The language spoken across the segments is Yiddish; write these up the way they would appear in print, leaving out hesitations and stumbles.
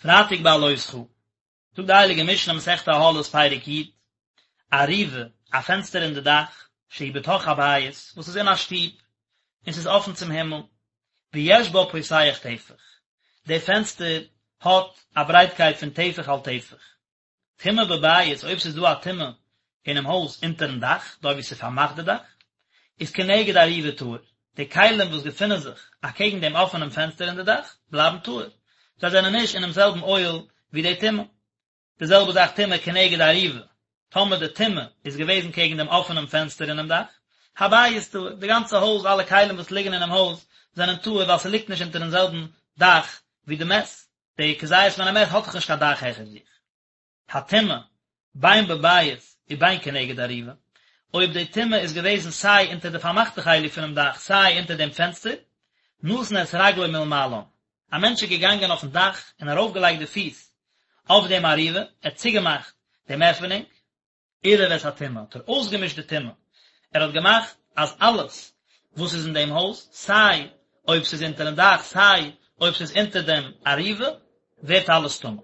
פרייטאג בהעלותך, זאגט די הייליגע משנה מסכת אהלות פרק י', ארובה, א פענסטער אין די דאך, שהיא בתוך הבית, וואס איז אין א שטוב, און ס'איז אפן צום הימל, ויש בה פותח טפח, די פענסטער האט א ברייטקייט פון טפח על טפח. טומאה בבית, אויב ס'איז דא א טומאה אינעם הויז אונטערן דאך, דארט וואו ס'איז פארמאכט די דאך, איז כנגד ארובה טהור, די כלים וואס געפינען זיך אקעגן דעם אפענעם פענסטער אין די דאך, בלייבן טהור, זיי זענען נישט אינעם זעלבן אוהל ווי די טומאה. די זעלבע זאך טומאה כנגד ארובה, טאמער די טומאה איז געוועזן קעגן דעם אפענעם פענסטער אינעם דאך, הבית טהור, די גאנצע הויז, אלע כלים וואס ליגן אינעם הויז, זענען טהור ווייל ס'ליגט נישט אונטערן זעלבן דאך ווי די מת, די כזית מן המת האט דאך נישט קיין דאך העכער זיך. הטומאה, בין בבית ובין כנגד ארובה, אויב די טומאה איז געוועזן סיי אונטער די פארמאכטע חלק פונעם דאך סיי אונטער דעם פענסטער, נתן את רגלו מלמעלן, א מענטש איז געגאנגען אויפן דאך און ארויפגעלייגט די פיס אויף דעם ארובה, ער האט צוגעמאכט דעם עפענונג, עירב את הטומאה, האט ער אויסגעמישט די טומאה, ער האט געמאכט אז אלעס וואס איז אין דעם הויז, סיי אויב ס'איז אונטערן דאך סיי אויב ס'איז אונטער דעם ארובה, ווערט אלעס טמא.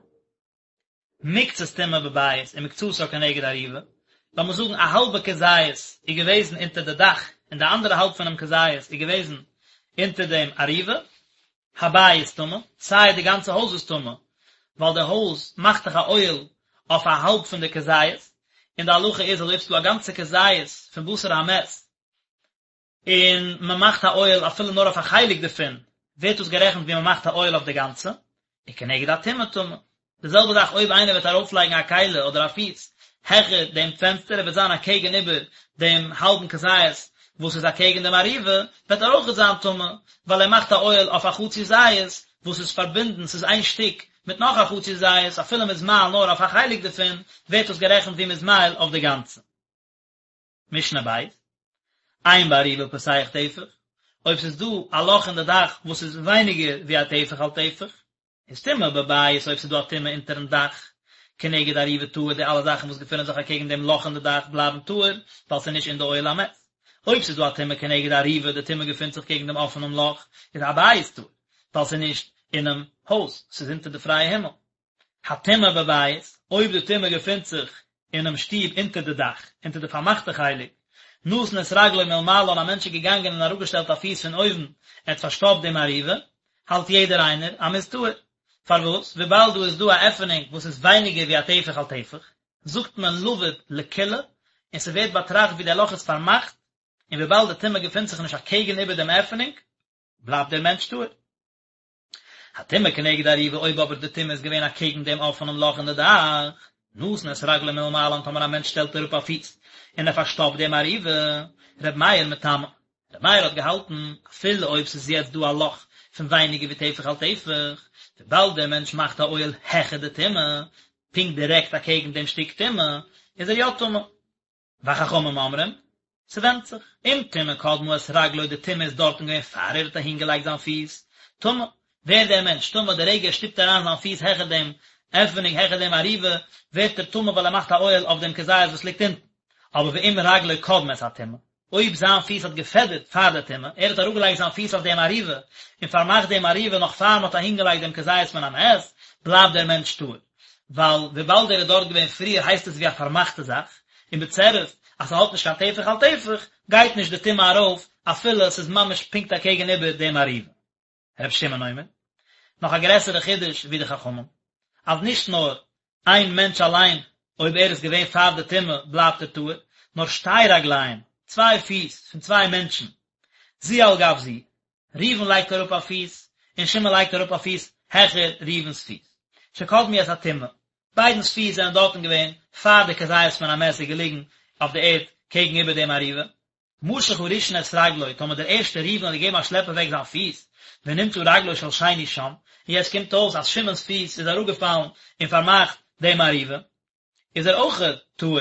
מקצת טומאה בבית ומקצתה כנגד ארובה, לאמיר זאגן א האלבע כזית איז געוועזן אונטער די דאך און די אנדערע האלב פונעם כזית איז געוועזן אונטער דעם ארובה, הבית טמא, סיי די גאנצע הויז איז טמא, ווייל די הויז מאכט דאך א אוהל אויף א האלב פון די כזית, און די הלכה איז אז אויב ס'איז דא א גאנצע כזית פון בשר המת, און מען מאכט א אוהל אפילו נאר אויף א חלק דערפון, ווערט דאס גערעכנט ווי מען מאכט א אוהל אויף די גאנצע, וכנגד הטומאה טמא. די זעלבע זאך אויב איינער וועט ארויפלייגן א כלי אדער א פיס העכער דעם פענסטער, ער וועט זיין אקעגן איבער דעם האלבן כזית וואס איז אקעגן דעם ארובה, וועט ער אויכעט זיין טמא, ווייל ער מאכט א אוהל אויף א חצי זית וואס איז פארבינדן, ס'איז איין שטיק מיט נאך א חצי זית, אפילו מ'איז מאהיל נאר אויף א חלק דערפון, ווערט דאס גערעכנט ווי מ'איז מאהיל אויף די גאנצע. משנה ב', אין בארובה פותח טפח, אויב ס'איז דא א לאך אין די דאך וואס איז ווייניגער ווי א טפח על טפח, איז טומאה בבית אויב ס'איז דא א טומאה אונטערן דאך, כנגד ארובה טהור די אלע זאכן וואס געפינען זיך אקעגן דעם לאך אין די דאך בלייבן טהור, ווייל ס'איז נישט אין די אוהל המת. אויב ס'איז דא א טומאה כנגד ארובה די טומאה געפינט זיך קעגן דעם אפענעם לאך, איז הבית טהור, ווייל ס'איז נישט אינעם הויז, ס'איז אונטער די פרייע הימל. הטומאה בבית, אויב די טומאה געפינט זיך אינעם שטוב אונטער די דאך, אונטער די פארמאכטע חלק, נתן את רגלו מלמעלה און א מענטש איז געגאנגען און אראפגעשטעלט א פיס פון אויבן, ער האט פארשטאפט דעם ארובה, האלט יעדער איינער אז מ'איז טהור. פארוואס? וויבאלד דא איז דא א עפענונג וואס איז ווייניגער ווי א טפח על טפח, זאגט מען לבוד לקולא, און ס'ווערט באטראכט ווי דער לאך איז פארמאכט, און וויבאלד די טומאה געפינט זיך נישט אקעגן איבער דעם עפענונג, בלייבט דער מענטש טהור. הטומאה כנגד ארובה אויב אבער די טומאה איז געווען אקעגן דעם אפענעם לאך אין די דאך, נתן את רגלו מלמעלה טאמער א מענטש שטעלט אראפ א פיס און ער פארשטאפט דעם ארובה, ר' מאיר מטמא. ר' מאיר האט געהאלטן, אפילו אויב ס'איז יעצט דא א לאך פון ווייניגער ווי טפח על טפח, וויבאלד דער מענטש מאכט א אוהל העכער די טומאה, פונקט דירעקט אקעגן דעם שטיק טומאה, איז ער יא טמא. וחכמים אומרים, ס'ווענדט זיך, אם טומאה קדמה את רגלו די טומאה איז דארטן געווען פאר ער האט אהין געלייגט זיין פיס, טמא, ווערט דער מענטש טמא די רגע ער שטופט אריין זיין פיס העכער דעם עפענונג העכער דעם ארובה, ווערט ער טמא ווייל ער מאכט א אוהל אויף דעם כזית וואס ליגט אונטן. אבער ואם רגלו קדמה את הטומאה, אויב זיין פיס האט געפעדערט פאר די טומאה, ער האט אראפגעלייגט זיין פיס אויף דעם ארובה און פארמאכט דעם ארובה נאך פאר מ'האט אהינגעלייגט דעם כזית מן המת, בלייבט דער מענטש טהור. ווייל וויבאלד ער איז דארט געווען פריער הייסט עס ווי א פארמאכטע זאך, און בצירוף אז ס'האט נישט קיין טפח על טפח, גייט נישט די טומאה ארויף אפילו ס'איז ממש פונקט אקעגן איבער דעם ארובה. ר' שמעון אומר, נאך א גרעסערע חידוש ווי די חכמים, אז נישט נאר איין מענטש אליין אויב ער איז געווען פאר די טומאה בלייבט ער טהור, נאר שתי רגליים, צוויי פיס פון צוויי מענטשן, זו על גב זו, ראובן לייגט אראפ א פיס און שמעון לייגט אראפ א פיס העכער ראובן'ס פיס, שקדמו את הטומאה, ביידנ'ס פיס זענען דארטן געווען פאר די כזית מן המת איז געליגן אויף די ערד קעגן איבער דעם ארובה. משך הראשון את רגלו, טאמער דער ערשטער ראובן האט געגעבן א שלעפ אוועק זיין פיס, ונמצא רגלו של שני שם, און יעצט קומט אויס אז שמעון'ס פיס איז אראפגעפאלן און פארמאכט דעם ארובה, איז ער אויכעט טהור,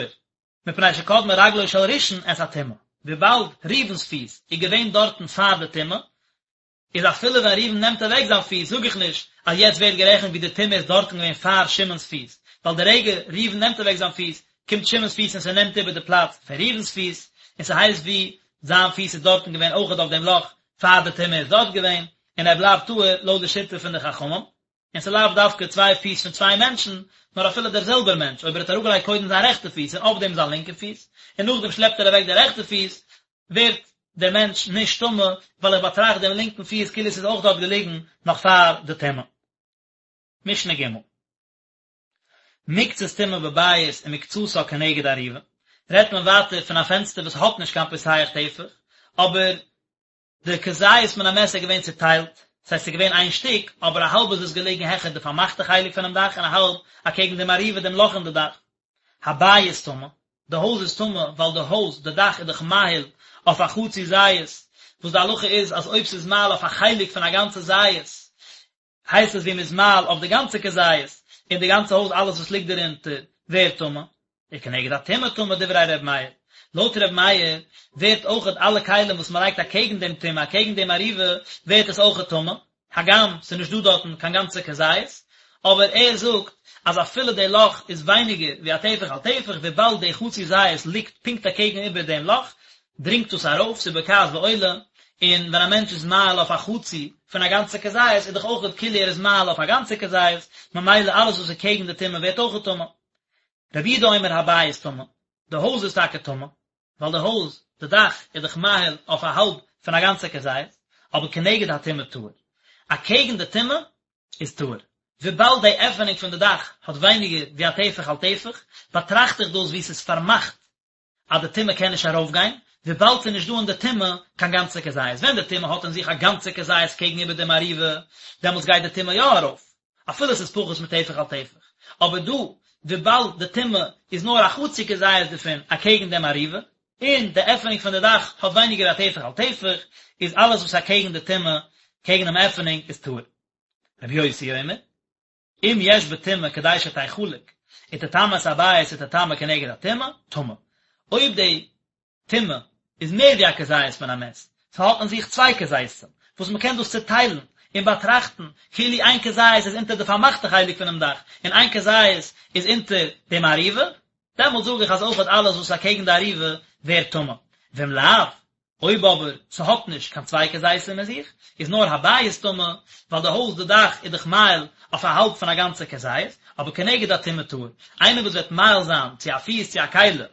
מפני שקדמה רגלו של ראשון את הטומאה, וויבאלד ראובן'ס פיס איז געווען דארטן פאר די טומאה, איז אפילו ווען ראובן נעמט אוועק זיין פיס זאג איך נישט אז יעצט ווערט גערעכנט ווי די טומאה איז דארטן געווען פאר שמעון'ס פיס, ווייל די רגע ראובן נעמט אוועק זיין פיס קומט שמעון'ס פיס און ס'נעמט איבער די פלאץ פון ראובן'ס פיס, און ס'הייסט ווי זיין פיס איז דארטן געווען אויכעט אויף דעם לאך פאר די טומאה איז דארט געווען, און ער בלייבט טהור לויט די שיטה פון די חכמים. און ס'איז לאו דווקא צוויי פיס פון צוויי מענטשן, נאר אפילו דער זעלבער מענטש, אויב ער האט אראפגעלייגט קודם זיין רעכטע פיס און אויף דעם זיין לינקע פיס, און נאכדעם שלעפט ער אוועק די רעכטע פיס, ווערט דער מענטש נישט טמא, ווייל איך באטראכט דעם לינקן פיס כאילו ס'איז אויך דארט געליגן נאך פאר די טומאה. משנה ג'. מקצת טומאה בבית ומקצתה כנגד אריבה, רעדט מען ווייטער פון א פענסטער וואס האט נישט קיין פותח טפח, אבער די כזית מן המת איז געווען צוטיילט, ס'הייסט ס'איז געווען איין שטיק, אבער א האלב איז עס געלעגן העכער די פארמאכטע חלק פונעם דאך און א האלב אקעגן דעם אריבה דעם לאך אין די דאך. הבית טמא, די הויז איז טמא ווייל די הויז, די דאך איז דאך מאהיל אויף א חצי זית, וואס די הלכה איז אז אויב ס'איז מאהיל אויף א חלק פון א גאנצע זית, הייסט עס ווי מ'איז מאהיל אויף די גאנצע כזית, און די גאנצע הויז אלעס וואס ליגט דערונטער ווערט טמא. וכנגד הטומאה טמא דברי ר' מאיר. לויט ר' מאיר ווערט אויכעט אלע כלים וואס מ'לייגט אקעגן דעם טומאה אקעגן דעם אריבה ווערט עס אויכעט טמא, הגם ס'איז נישט דא דארטן קיין גאנצע כזית, אבער ער זאגט אז אפילו די לאך איז ווייניגער ווי א טפח על טפח וויבאלד די חצי זית ליגט פונקט אקעגן איבער דעם לאך דרינגט דאס ארויף, ס'איז בוקעת ועולה, און ווען א מענטש איז מאהיל אויף א חצי פון א גאנצע כזית איז דאך אויכעט כאילו ער איז מאהיל אויף א גאנצע כזית, ממילא אלעס וואס איז קעגן די טומאה ווערט אויכעט טמא. רבי יהודה אומר הבית טמא, די הויז איז טאקע טמא, ווייל די הויז, די דאך, איז דאך מאהיל אויף א האלב פון א גאנצע כזית, אבער כנגד הטומאה טהור. אקעגן די טומאה איז טהור. וויבאלד די עפענונג פון די דאך האט ווייניגער ווי א טפח על טפח, באטראכט איך דאס ווי ס'איז פארמאכט אז די טומאה קען נישט ארויפגיין, וויבאלד ס'איז נישט דא אין די טומאה קיין גאנצע כזית. ווען די טומאה האט אין זיך א גאנצע כזית קעגן איבער דעם אריבה, דעמאלטס גייט די טומאה יא ארויף, אפילו ס'איז פחות מטפח על טפח. אבער דא, וויבאלד די טומאה איז נאר א חצי כזית דערפון אקעגן דעם אריבה, און די עפענונג פון די דאך האט ווייניגער א טפח על טפח, איז אלעס וואס אקעגן די טומאה, קעגן דעם עפענונג, איז טהור. רבי יוסי אומר. אם יש בטומאה כדי שתחלק ותטמא את הבית ותטמא כנגד הטומאה, טמא. אויב די טומאה איז מער ווי א כזית מן המת, ס'האט אין זיך צוויי כזיתים, וואס מ'קען דאס צוטיילן און באטראכטן כאילו איין כזית איז אונטער די פארמאכטע חלק פונעם דאך און איין כזית איז אונטער דעם אריבה, דעמאלט זאג איך אז אויכעט אלעס וואס איז אקעגן די אריבה ווערט טמא. ואם לאו, אויב אבער ס'האט נישט קיין צוויי כזיתים אין זיך, איז נאר הבית טמא, ווייל די הויז די דאך איז דאך מאהיל אויף א האלב פון א גאנצע כזית, אבער כנגד הטומאה טהור, איינער וואס וועט מאהיל זיין צו א פיס צו א כלי,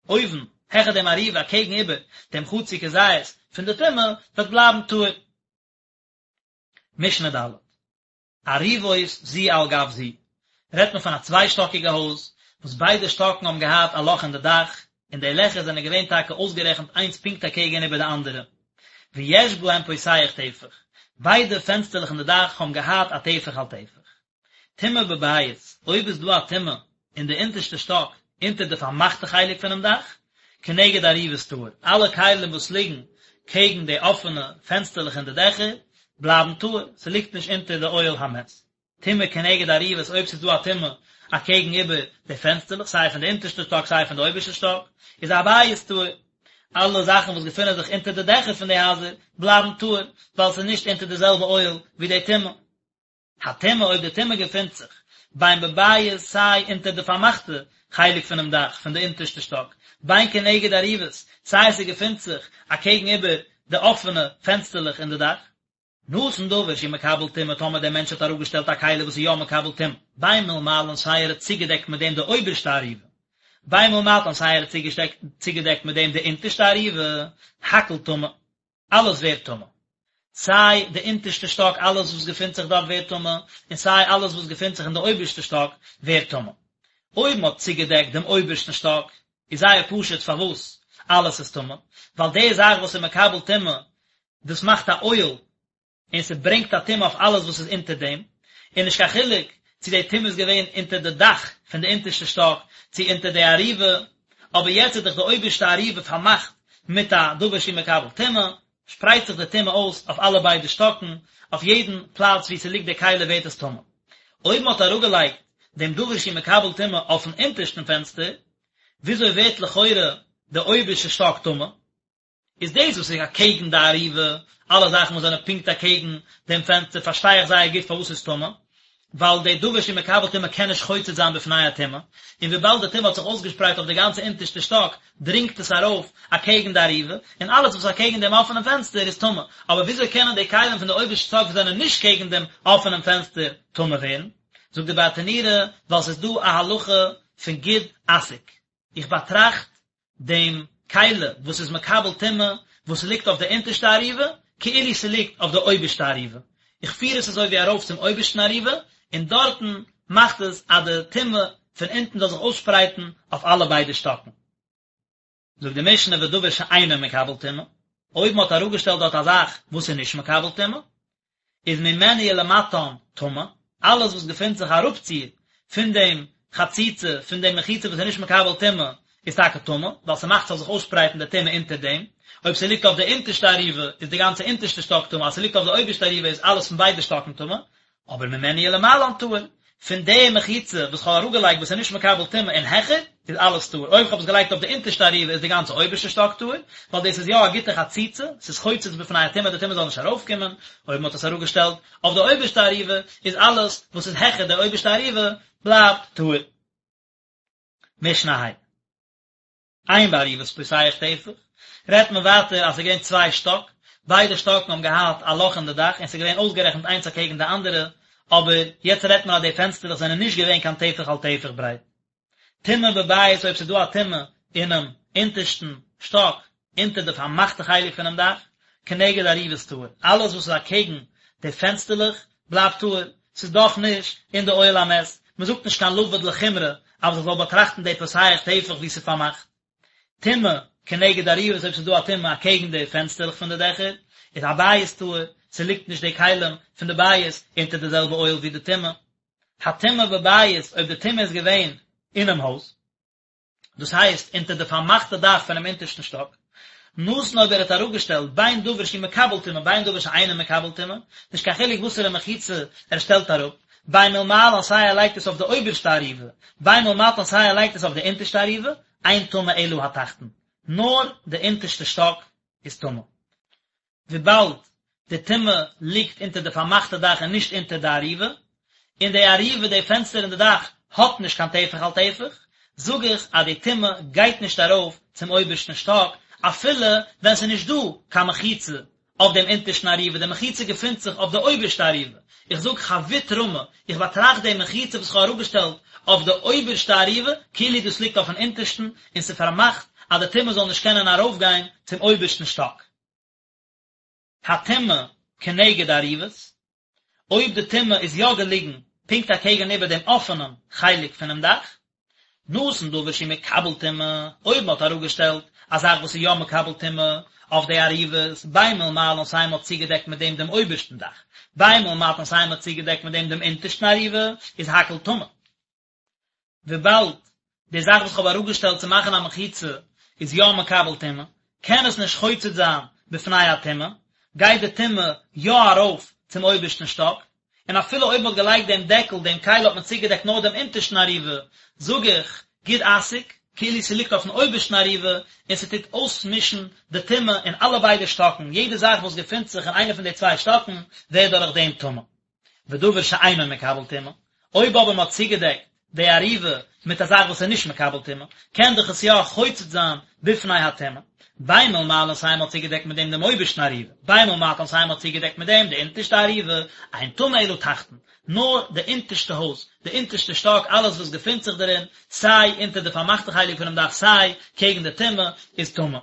אויבן, העכער דעם אריבה אקעגן איבער דעם חצי כזית פון די טומאה, וועט בלייבן טהור. משנה ד'. אריבות זו על גב זו, רעדט מען פון א צוויי שטאקיגע הויז, וואס ביידע שטאקן האבן געהאט א לאך אין די דאך, און די לעכער זענען געווען טאקע אויסגערעכנט איינס פונקט אקעגן איבער די אנדערע. ויש בהם פותח טפח, ביידע פענסטערלעך אין די דאך האבן געהאט א טפח על טפח. טומאה בבית, אויב איז דא א טומאה אין די אונטערשטע שטאק, אונטער די פארמאכטע חלק פונעם דאך, כנגד אריבות טהור, אלע כלים וואס ליגן קעגן די אפענע פענסטערלעך אין די דעכער, בלייבן טהור, ס'ליגט נישט אונטער די אוהל המת. טומאה כנגד אריבות, אויב ס'איז דא א טומאה אקעגן איבער די פענסטערלעך, סיי פון די אונטערשטע שטאק סיי פון די אויבערשטע שטאק, איז הבית טהור. אלע זאכן וואס געפונען זיך אונטער די דעכער פון די הייזער, בלייבן טהור, ווייל ס'איז נישט אונטער די זעלבע אוהל ווי די טומאה. הטומאה אויב די טומאה געפינט זיך בין בבית סיי אונטער די פארמאכטע חלק פונעם דאך פון די אונטערשטע שטאק, בין כנגד אריבות סיי ס'געפינט זיך אקעגן איבער די אפענע פענסטערלעך אין די דאך. נתן דבר שהוא מקבל טומאה טאמער דער מענטש האט אראפגעשטעלט א כלי וואס איז יא מקבל טומאה, בין מלמעלן סיי ער האט צוגעדעקט מיט דעם די אויבערשטע אריבה, בין מלמטן סיי ער האט צוגעדעקט מיט דעם די אונטערשטע אריבה, הכל טמא. אלעס ווערט טמא. סיי די אונטערשטע שטאק אלעס וואס געפינט זיך דארט ווערט טמא, און סיי אלעס וואס געפינט זיך אין די אויבערשטע שטאק ווערט טמא. אויב מען האט צוגעדעקט דעם אויבערשטן שטאק, איז זייער פשוט פארוואס אלעס איז טמא, ווייל די זאך וואס איז מקבל טומאה, דאס מאכט א אוהל און ס'ברענגט א טומאה אויף אלעס וואס איז אונטער דעם, און נישט קיין חילוק צו די טומאה איז געווען אונטער די דאך פון די אונטערשטע שטאק, צו אונטער די אריבה, אבער יעצט איז דאך די אויבערשטע אריבה פארמאכט מיט א דבר שהוא מקבל טומאה, שפרייט זיך די טומאה אויס אויף אלע ביידע שטאקן, אויף יעדן פלאץ וואו ס'ליגט די כלי ווערט עס טמא. אויב מ'האט אראפגעלייגט דעם דבר שהוא מקבל טומאה אויפן אונטערשטן פענסטער, וויאזוי ווערט לכאורה די אויבערשטע שטאק טמא? איז דאס וואס איז אקעגן די אריבה, אלע זאכן וואס זענען פונקט אקעגן דעם פענסטער פארשטיי איך זייער גוט פארוואס ס'איז טמא, ווייל די דבר שהוא מקבל טומאה קען נישט חוצץ זיין בפני הטומאה, און וויבאלד די טומאה האט זיך אויסגעשפרייט אויף די גאנצע אונטערשטע שטאק, דרינגט עס ארויף אקעגן די אריבה, און אלעס וואס איז אקעגן דעם אפענעם פענסטער איז טמא. אבער וויאזוי קענען די כלים פון די אויבערשטע שטאק וואס זענען נישט קעגן דעם אפענעם פענסטער טמא ווערן? זאגט די ברטנורא, ווייל ס'איז דא א הלכה פון גוד אסיק. איך באטראכט דעם כלי וואס איז מקבל טומאה וואס ליגט אויף די אונטערשטע אריבה, כאילו ס'ליגט אויף די אויבערשטע אריבה. איך פיר עס אזוי ווי ארויף צום אויבערשטן אריבה, און דארטן מאכט עס אז די טומאה פון אונטן זאל זיך אויסשפרייטן אויף אלע ביידע שטאקן. זאגט די משנה ודבר שאינו מקבל טומאה, אויב מ'האט אראפגעשטעלט דארט א זאך וואס איז נישט מקבל טומאה, איז ממנו ולמטן טמא, אלעס וואס געפינט זיך אראפציר פון דעם חציצה, פון דעם מחיצה וואס איז נישט מקבל טומאה, איז טאקע טמא, ווייל ס'מאכט ס'זאל זיך אויסשפרייטן די טומאה אונטער דעם, אויב ס'ליגט אויף די אונטערשטע אריבה איז די גאנצע אונטערשטע שטאק טמא, אז ס'ליגט אויף די אויבערשטע אריבה איז אלעס פון ביידע שטאקן טמא, אבער ממנו ולמעלן טהור, פון די מחיצה וואס כ'האב אראפגעלייגט וואס איז נישט מקבל טומאה און העכער, איז אלעס טהור, אויב כ'האב עס געלייגט אויף די אונטערשטע אריבה איז די גאנצע אויבערשטע שטאק טהור, ווייל דאס איז יא א גוטע חציצה, ס'איז חוצץ בפני הטומאה די טומאה זאל נישט ארויפקומען, אויב מ'האט עס אראפגעשטעלט אויף די אויבערשטע אריבה איז אלעס וואס איז העכער די אויבערשטע אריבה בלייבט טהור. משנה ה'. אין באריבות פותח טפח, רעדט מען ווייטער אז ס'איז געווען צוויי שטאק, ביידע שטאקן האבן געהאט א לאך אין די דאך און ס'איז געווען אויסגערעכנט איינס אקעגן די אנדערע, אבער יעצט רעדט מען אז די פענסטערלעך זענען נישט געווען קיין טפח על טפח ברייט. טומאה בבית אויב ס'איז דא א טומאה אינעם אונטערשטן שטאק, אונטער די פארמאכטע חלק פונעם דאך, כנגד אריבות טהור, אלעס וואס איז אקעגן די פענסטערלעך בלייבט טהור, ס'איז דאך נישט אין די אוהל המת, מ'זאגט נישט קיין לבוד לחומרא אז איך זאל באטראכטן די פותח טפח ווי ס'איז פארמאכט. טומאה כנגד אריבות אויב ס'איז דא א טומאה אקעגן די פענסטערלעך פון די דעכער, איז הבית טהור, ס'ליגט נישט די כלים פון די בית אונטער די זעלבע אוהל ווי די טומאה. הטומאה בבית אויב די טומאה איז געווען אינעם הויז. דאס הייסט אונטער די פארמאכטע דאך פונעם אונטערשטן שטאק, נתן אויב ער האט אראפגעשטעלט בין דבר שהוא מקבל טומאה בין דבר שאינו מקבל טומאה, נישט קיין חילוק וואסערע מחיצה ער שטעלט אראפ, בין מלמעלן סיי ער לייגט עס אויף די אויבערשטע אריבה, בין מלמטן סיי ער לייגט עס אויף די אונטערשטע אריבה, אין טמא אלא התחתון, נאר די אונטערשטע שטאק איז טמא. וויבאלד די טומאה ליגט אונטער די פארמאכטע דאך און נישט אונטער די אריבה, און די אריבה, די פענסטער אין די דאך, האט נישט קיין טפח על טפח, זאג איך אז די טומאה גייט נישט ארויף צום אויבערשטן שטאק, אפילו ווען ס'איז נישט דא קיין מחיצה אויף דעם אונטערשטן אריבה, די מחיצה געפינט זיך אויף די אויבערשטע אריבה, איך זאג חבוט רמי, איך באטראכט די מחיצה וואס איך האב אראפגעשטעלט אויף די אויבערשטע אריבה, כאילו דאס ליגט אויפן אונטערשטן, און ס'פארמאכט אז די טומאה זאל נישט קענען ארויפגיין צום אויבערשטן שטאק. הטומאה כנגד אריבות, אויב די טומאה איז יא געליגן פונקט אקעגן איבער דעם אפענעם חלק פונעם דאך, נתן דבר שהוא מקבל טומאה, אויב מען האט אראפגעשטעלט א זאך וואס איז יא מקבל טומאה אויף די אריבות, בין מלמעלן סיי מען האט צוגעדעקט מיט דעם דעם אויבערשטן דאך, בין מלמטן סיי מען האט צוגעדעקט מיט דעם דעם אונטערשטן אריבה, איז הכל טמא. וויבאלד די זאך וואס כ'האב אראפגעשטעלט צו מאכן א מחיצה איז יא מקבל טומאה, קען עס נישט חוצץ זיין בפני הטומאה, גייט די טומאה יא ארויף צום אויבערשטן שטאק, און אפילו אויב מ'האט געלייגט דעם דעקל, דעם כלי האט מען צוגעדעקט נאר דעם אונטערשטן אריבה, זאג איך, גוד אסיק, כאילו ס'ליגט אויפן אויבערשטן אריבה, און ס'טוט אויסמישן די טומאה אין אלע ביידע שטאקן, יעדע זאך וואס געפינט זיך אין איינע פון די צוויי שטאקן ווערט דורך דעם טמא. ודבר שאינו מקבל טומאה, אויב אבער מען האט צוגעדעקט די אריבה מיט א זאך וואס איז נישט מקבל טומאה, קען דאך עס יא חוצץ זיין בפני הטומאה, בין מלמעלן סיי מען האט צוגעדעקט מיט דעם דעם אויבערשטן אריבה, בין מלמטן סיי מען האט צוגעדעקט מיט דעם די אונטערשטע אריבה, אין טמא אלא תחתון, נאר די אונטערשטע הויז, די אונטערשטע שטאק, אלעס וואס געפינט זיך דערין, סיי אונטער די פארמאכטע חלק פונעם דאך סיי קעגן די טומאה, איז טמא.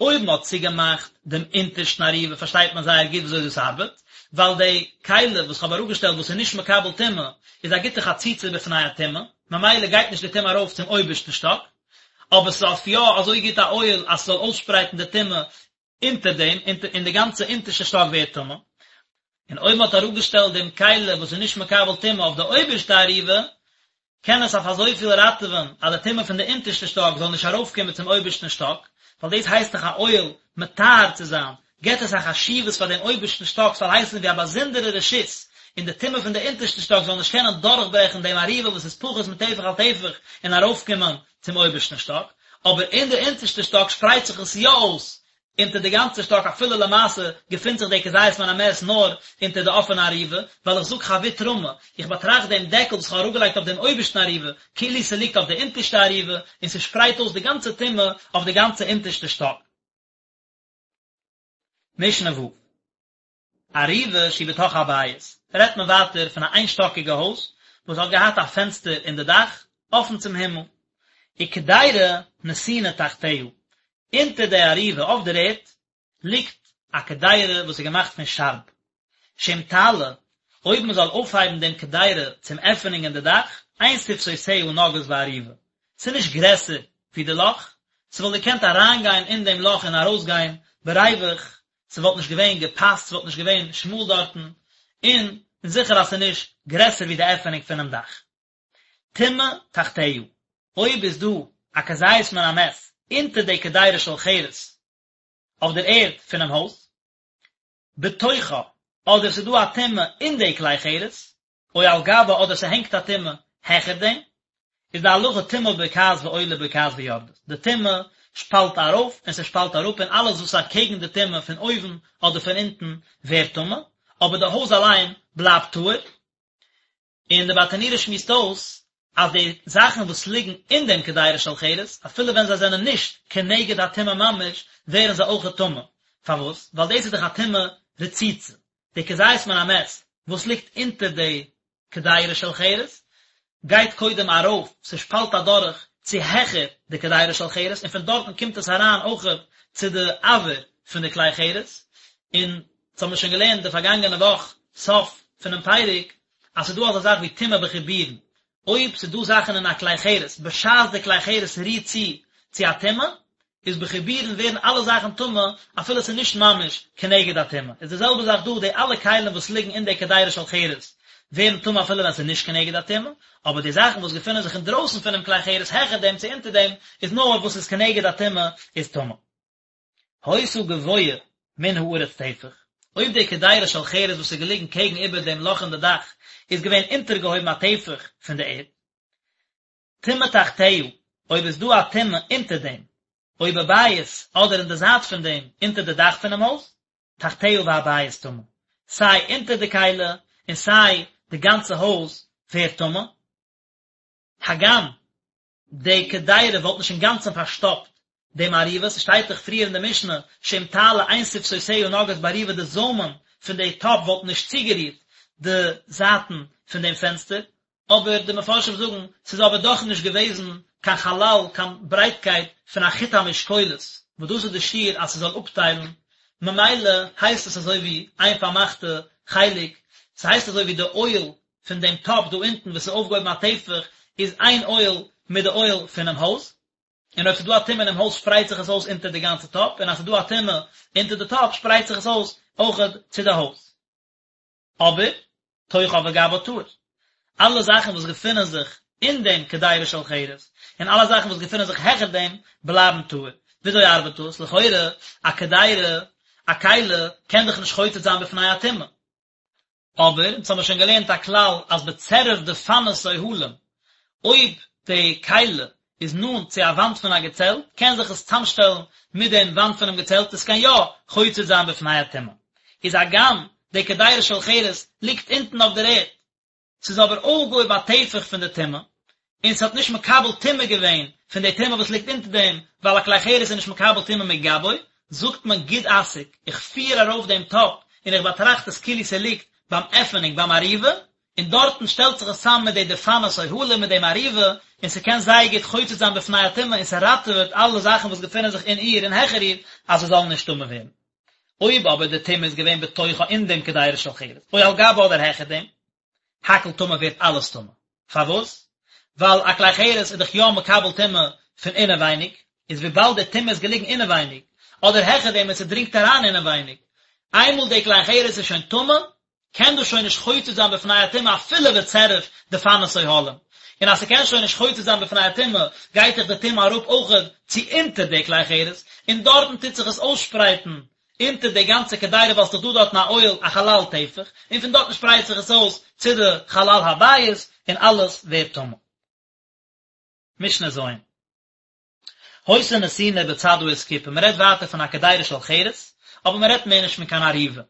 אויב מען האט צוגעמאכט דעם אונטערשטן אריבה פארשטייט מען זייער גוט וויאזוי דאס ארבעט, ווייל די כלי וואס כ'האב אראפגעשטעלט וואס איז נישט מקבל טומאה איז א גוטע חציצה בפני הטומאה, ממילא גייט נישט די טומאה ארויף צום אויבערשטן שטאק, אבער ס'איז אויף יא אזוי גוט א אוהל אז ס'זאל אויסשפרייטן די טומאה אונטער דעם, און די גאנצע אונטערשטע שטאק ווערט טמא. און אויב מען האט אראפגעשטעלט דעם כלי וואס איז נישט מקבל טומאה אויף די אויבערשטע אריבה, קען עס אויף אזויפיל ראטעווען אז די טומאה פון די אונטערשטע שטאק זאל נישט ארויפקומען צום אויבערשטן שטאק, ווייל דאס הייסט דאך א אוהל מטהר צו זיין, געבט עס א חשיבות פאר דעם אויבערשטן שטאק ס'זאל הייסן ווי א באזונדערע רשות, און די טומאה פון די אונטערשטע שטאק זאל נישט קענען דורכברעכן דעם אריבה וואס איז פחות מטפח על טפח און ארויפקומען צום אויבערשטן שטאק, אבער אין די אונטערשטע שטאק שפרייט זיך עס יא אויס. אונטער די גאנצע שטאק אפילו למעשה געפינט זיך די כזית מן המת נאר אונטער די אפענע ארובה, ווייל איך זאג חבוט רמי, איך באטראכט דעם דעקל וואס כ'האב אראפגעלייגט אויף דעם אויבערשטן ארובה, כאילו ס'ליגט אויף די אונטערשטע ארובה, און ס'שפרייט אויס די גאנצע טומאה אויף די גאנצע אונטערשטע שטאק. משנה ו'. ארובה שהיא בתוך הבית, רעדט מען ווייטער פון א איינשטאקיגע הויז וואס האט געהאט א פענסטער אין די דאך, אפן צום הימל, וקדירה נתונה תחתיה, אונטער די ארובה אויף דער ערד ליגט א קדירה וואס איז געמאכט פון שארב, שאם תעלה, אויב מען זאל אויפהייבן דעם קדירה צום עפענונג אין די דאך, אין שפתותיה נוגעות בארובה, ס'איז נישט גרעסער ווי די לאך, ס'וואלט געקענט אריינגיין אין דעם לאך און ארויסגיין בריווח, ס'וואלט נישט געווען געפאסט, ס'וואלט נישט געווען שמאל דארטן, און זיכער אז ס'איז נישט גרעסער ווי די עפענונג פונעם דאך. טומאה תחתיה, אויב איז דא א כזית מן המת אונטער די קדירה של חרס אויף דער ערד פונעם הויז, בתוכה, אדער ס'איז דא א טומאה אין די כלי חרס, או על גבה אדער ס'הענגט א טומאה העכער דעם, איז די הלכה טומאה בוקעת ועולה בוקעת ויורדת, די טומאה שפאלט ארויף און ס'שפאלט אראפ און אלעס וואס איז אקעגן די טומאה פון אויבן אדער פון אונטן ווערט טמא, אבער די הויז אליין בלייבט טהור. און די ברטנורא שמועסט אויס אז די זאכן וואס ליגן אין דעם קדירה של חרס, אפילו ווען זיי זענען נישט כנגד הטומאה ממש, ווערן זיי אויכעט טמא. פארוואס? ווייל דאס איז דאך א טומאה רצוצה. די כזית מן המת וואס ליגט אונטער די קדירה של חרס, גייט קודם ארויף, ס'שפאלט אדורך צו העכער די קדירה של חרס, און פון דארטן קומט עס אריין אויכעט צו די אויר פון די כלי חרס, און דאס האבן מיר שוין געלערנט די פארגאנגענע וואך סוף פונעם פרק, אז ס'איז דא אזא זאך ווי טומאה בחיבורין, אויב ס'איז דא זאכן אין א כלי חרס בשעת די כלי חרס רירט צו צו א טומאה, איז בחיבורין ווערן אלע זאכן טמא אפילו ס'איז נישט ממש כנגד הטומאה, איז די זעלבע זאך דא, די אלע כלים וואס ליגן אין די קדירה של חרס ווערן טמא אפילו ווען ס'איז נישט כנגד הטומאה, אבער די זאכן וואס געפינען זיך אינדרויסן פונעם כלי חרס העכער דעם צו אונטער דעם איז נאר וואס איז כנגד הטומאה איז טמא. היתה גבוהה מן הארץ טפח, אויב די קדירה של חרס וואס איז געליגן קעגן איבער דעם לאך אין די דאך איז געווען אונטערגעהויבן א טפח פון די ערד, טומאה תחתיה, אויב איז דא א טומאה אונטער דעם, או בבית, אדער אין די זייט פון דעם, אונטער די דאך פונעם הויז, תחתיה והבית טמא, סיי אונטער די כלי און סיי די גאנצע הויז ווערט טמא, הגם די קדירה וואלט נישט אינגאנצן פארשטאפט דעם ארובה, ס'שטייט דאך פריער אין די משנה שאם תעלה אין שפתותיה נוגעות בארובה די זוימען פון די טאפ וואלטן נישט צוגערירט די זייטן פון דעם פענסטער, אבער די מפרשים זאגן ס'איז אבער דאך נישט געוועזן קיין חלל קיין ברייטקייט פון א חוט המשקולת וואס דאס איז די שיעור אז ס'זאל אפטיילן, ממילא הייסט עס אזוי ווי איין פארמאכטע חלק, ס'הייסט אזוי ווי די אוהל פון דעם טאפ דא אונטן וואס איז אויפגעהויבן א טפח איז איין אוהל מיט די אוהל פונעם הויז, און אויב ס'איז דא א טומאה אינעם הויז שפרייט זיך עס אויס אונטער די גאנצע טאפ, און אז ס'איז דא א טומאה אונטער די טאפ שפרייט זיך עס אויס אויכעט צו די הויז. אבער, תוכה וגבה טהור. אלע זאכן וואס געפונען זיך אין דעם קדירה של חרס, און אלע זאכן וואס געפונען זיך העכער דעם, בלייבן טהור. וויאזוי ארבעט דאס? לכאורה, א קדירה, א כלי, קען דאך נישט חוצץ זיין בפני הטומאה. אבער, אונז האמיר שוין געלערנט א כלל אז בצירוף דפנות אוהלים, אויב די כלי איז נאנט צו א וואנט פון א געצעלט, קען זיך עס צאמשטעלן מיט דעם וואנט פונעם געצעלט, עס קען יא חוצץ זיין בפני הטומאה. איז הגם די קדירה של חרס ליגט אונטן אויף דער ערד, ס'איז אבער אויפגעהויבן א טפח פון די טומאה, און ס'האט נישט מקבל טומאה געווען פון די טומאה וואס ליגט אונטער דעם, ווייל א כלי חרס איז נישט מקבל טומאה מגבו, זאגט מען גוד אסיק, איך פיר ארויף דעם טאפ און איך באטראכט עס כאילו ס'ליגט ביים עפענונג ביים ארובה, און דארטן שטעלט זיך עס צאם מיט די דפנות אוהלים מיט דעם ארובה, און ס'קען זייער גוט חוצץ זיין בפני הטומאה און ס'ראטעוועט אלע זאכן וואס געפינען זיך אין איר און העכער איר אז זיי זאלן נישט טמא ווערן. אויב אבער די טומאה איז געווען בתוכה אין דעם קדירה של חרס, או על גבה אדער העכער דעם, הכל טמא ווערט אלעס טמא. פארוואס? ווייל א כלי חרס איז דאך יא מקבל טומאה פון אינעווייניג, איז וויבאלד די טומאה איז געליגן אינעווייניג, אדער העכער דעם און ס'דרינגט אריין אינעווייניג, איינמאל די כלי חרס איז שוין טמא, קען דאס שוין נישט חוצץ זיין בפני הטומאה אפילו בצירוף דפנות אוהלים, און אז ס'קען שוין נישט חוצץ זיין בפני הטומאה, גייט דאך די טומאה אראפ אויכעט צו אונטער די כלי חרס, און דארטן טוט זיך עס אויסשפרייטן אונטער די גאנצע קדירה ווייל ס'דאך דא דארטן א אוהל א חלל טפח, און פון דארטן שפרייט זיך עס אויס צו די חלל הבית, און אלעס ווערט טמא. משנה ז'. היתה נתונה בצד האסקופה, מען רעדט ווייטער פון א קדירה של חרס, אבער מען רעדט מער נישט פון קיין ארובה.